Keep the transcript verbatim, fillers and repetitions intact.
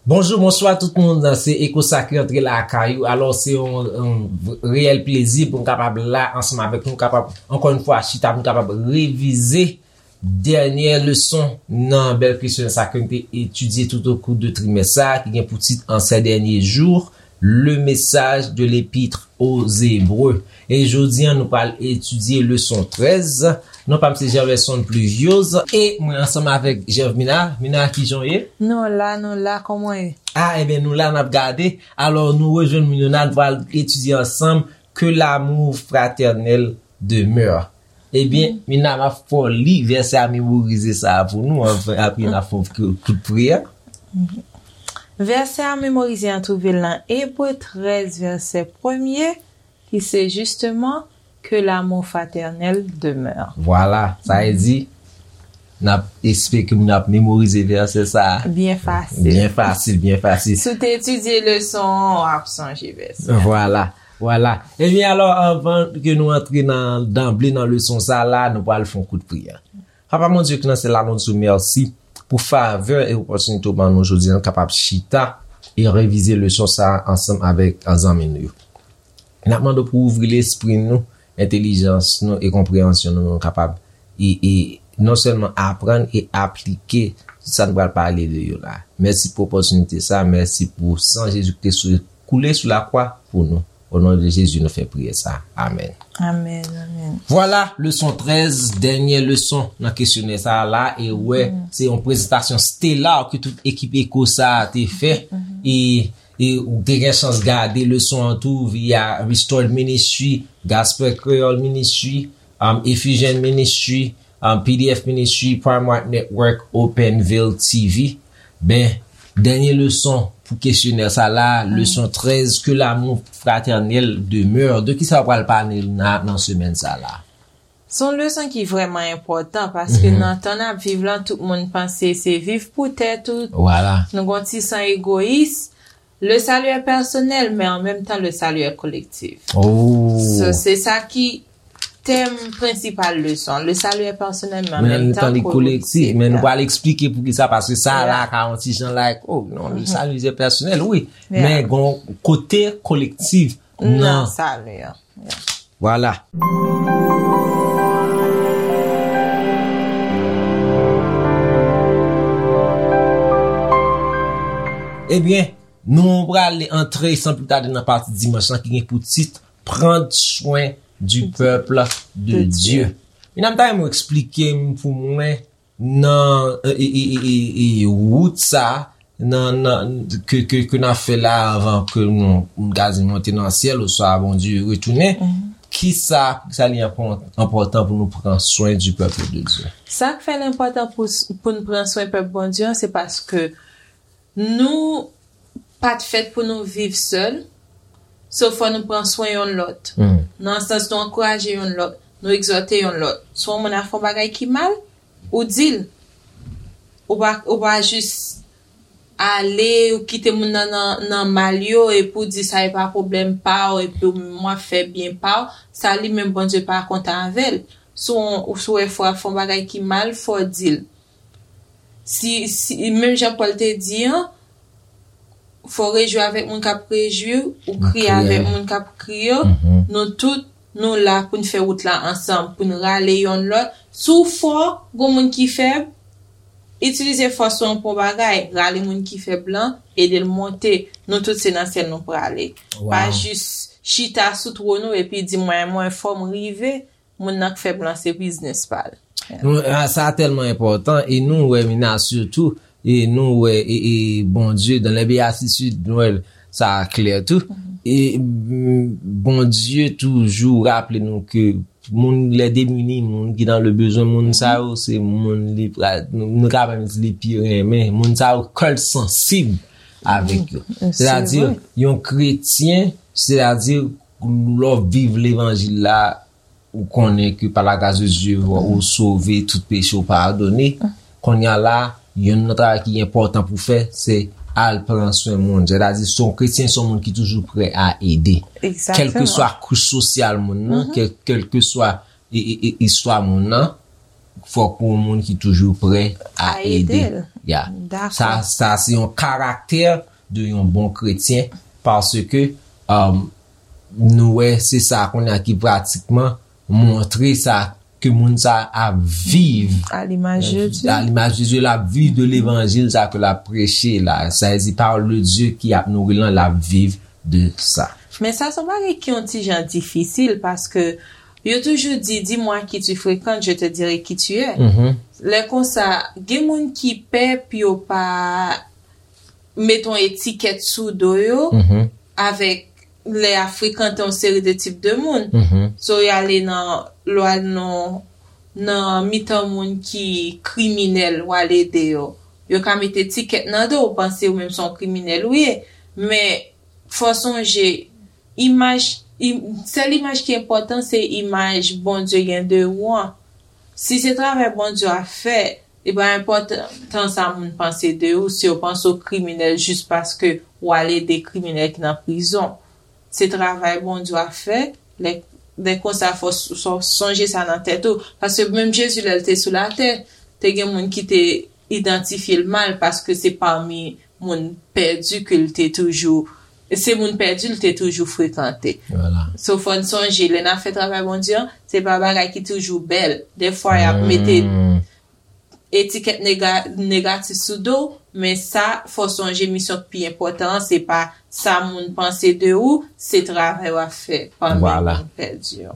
Bonjou, bonswa tout moun. Se Eko Sakre antre lakay ou. Alò, se yon, yon reyèl plezi pou m kapab la ansanm avèk nou, kapab, ankò yon fwa, chita pou n kapab revize dènye leson nan bèl kesyonè sa ke n te etidye tout au cours de trimès sa, ki gen pou tit En ces derniers jours, le message de l'Épître aux Hébreux. E jodi a, nou pral etidye leson trèz. Non pa m se Gerverson Pluviose e mwen ansanm avèk Gervmina. Mina, kijan w ye? Nou la, nou la, kòman w ye? Ah, ebyen, nou la, n ap gade. Alò, nou rejwenn moun yo, n a pral etidye ansanm Que l'amour fraternel demeure. Ebyen, Mina, m ap fè w li vèsè a memorize sa a pou nou, anvan, apre n ap fè yon kout, kout priyè. Vèsè a memorize an twouve l nan Ebre trèz, vèsè premye, ki se jisteman Que l'amour fraternel demeure. Vwala, sa vle di, n ap espere ke moun ap memorize vèsè sa a. Byen fasil. Byen fasil, byen fasil. Si w te etidye leson an, w ap sonje vèsè a. Vwala, vwala. Ebyen, alò, anvan ke nou antre nan, danble nan leson sa a la, nou pral fè yon kout priyè. Papa Bondye ki nan syèl la, nou di w mèsi pou favè e opòtinite w ban nou jodi a, nou kapab chita e revize leson sa a ansanm avèk zanmi nou yo. N ap mande w pou w ouvri lespri nou, entèlijans nou e konpreyansyon nou, nou kapab e, e non sèlman aprann e aplike sa n pral pale de yo la. Mèsi pou opòtinite sa, mèsi pou san Jezi ki te sou, koule sou lakwa pou nou. O non de Jezi, nou fè priyè sa. Amèn. Amèn, amèn. Vwala, leson trèz, dènye leson nan kesyonè sa a la, e wè, se yon prezantasyon stela ke tout ekip Eko sa a te fè, e, e ou te gen chans gade leson an tou via Restored Ministry, Gospel Creole Ministry, um, Effusion Ministry, um, P D F Ministry, Prime White Network, Open Veil T V. Ben, dènye leson pou kesyonè sa la, leson trèz, Que l'amour fraternel demeure. De kisa w pral pale nan, nan semèn sa la? Se yon leson ki vrèman enpòtan, paske nan tan n ap viv lan, tout moun panse se viv pou tèt ou. Vwala. Nou gon ti san egoyis. Le salut est personnel, mais en même temps, le salut est collectif. Oh. So, se sa ki tèm prensipal leson. Le salut est personnel, mais en même temps, collectif. Men nou pral eksplike poukisa, paske sa la ka yon ti jan like, oh non, le salut est personnel, wi. Men gon kote kolektif nan salut an. Vwala. Ebyen, nou pral antre san pli tade nan pati dimanch lan ki gen pou tit Prendre soin du peuple de Dieu. Mina, m ta renmen w eksplike m pou mwen nan e, e, e, e, e, wout sa, nan, nan, ke, ke, ke n ap fè la anvan ke nou, nou kazi monte nan syèl, oswa Bondye retounen, kisa, kisa li enpò-, enpòtan pou nou pran swen du peuple de Dieu? Sa k fè l enpòtan pou, pou n pran swen pèp Bondye an, se paske nou pa t fèt pou nou viv sèl, so fò nou pran swen yonn lòt. Nan sans nou ankouraje yonn lòt, nou egzòte yonn lòt. Si yon moun ap fè yon bagay ki mal, ou di l. Ou pa, ou pa jis ale, ou kite moun nan, nan, nan mal yo, epi w di sa e pa pwoblèm pa w, epi w menm w ap fè byen pa w, sa li menm Bondye pa kontan avè l. Si w, si w wè frè w ap fè yon bagay ki mal, fò w di l. Si, si, menm jan Pòl te di an, fò w rejwi avèk moun k ap rejwi, ou kriye avèk moun k ap kriye, nou tout, nou la pou n fè wout la ansanm, pou n rale yonn lòt. Si w fò, gon moun ki fèb, itilize fòs ou an pou yon bagay, rale moun ki fèb lan, ede l monte. Nou tout se nan syèl nou prale. Pa jis chita sou twòn ou epi di mwen, mwen fò m rive, moun nan k fèb lan se biznis pa l. Nou, a, sa tèlman enpòtan, e nou wè Mina sitou, e nou wè e, e Bondye dans les béatitudes, nou wè sa klè tou. E mm, Bondye toujou raple nou ke moun les démunis, moun ki dans le besoin, moun sa yo se moun li pra-, nou, nou ka menm di li pi renmen, moun sa yo kè l sansib avèk yo. Sètadi, yon kretyen, sètadi, lè w viv levanjil la, ou konnen ke par la grâce de Dieu, ou sove, tout peche w padone. Kounye a la, yonn nan travay ki enpòtan pou fè, se al pran swen moun. Sètadi, se yon kretyen, se yon moun ki toujou prè a ede. Kèlkeswa kouch sosyal moun nan, kèl, kèlkeswa e, e, e, istwa moun nan, fòk ou yon moun ki toujou prè a ede. Ya. Sa, sa se yon karaktè de yon bon kretyen, paske um, nou wè se sa kounye a ki pratikman montre sa ke moun sa ap viv. A limaj de Dye. A limaj de Dye, l ap viv de levanjil sa ke l ap preche la. Sa vle di pawòl de Dye ki ap nouri lan, l ap viv de sa. Men sa se yon bagay ki yon ti jan difisil paske yo toujou di, dis-moi à qui tu fréquentes, je te dirai qui tu es. Lè konsa, gen moun ki pè pou yo pa met yon etikèt sou do yo avèk lè y ap frekante yon seri de tip de moun. So y ale nan lwa nan nan mitan moun ki kriminèl w al ede yo. Yo ka met etikèt nan do w, panse ou menm se yon kriminèl ou ye. Men fò sonje, imaj, im, sèl imaj ki enpòtan se imaj Bondye gen de ou an. Si se travay Bondye w ap fè, li pa enpòtan sa moun panse de ou, si yo panse w kriminèl jis paske w al ede kriminèl ki nan prizon. Se travay Bondye w ap fè. Lè, lè konsa, fò s- fò sonje sa nan tèt ou. Paske menm Jezi, lè l te sou latè, te gen moun ki te idantifye l mal paske se pami moun pèdi ke l te toujou se moun pèdi l te toujou frekante. So fò n sonje, lè n ap fè travay Bondye an, se pa bagay ki toujou bèl. Defwa y ap mete etikèt nega, negatif sou do w, men sa, fò sonje misyon k pi enpòtan an, se pa sa moun panse de ou, se travay w ap fè pami moun pèdi yo.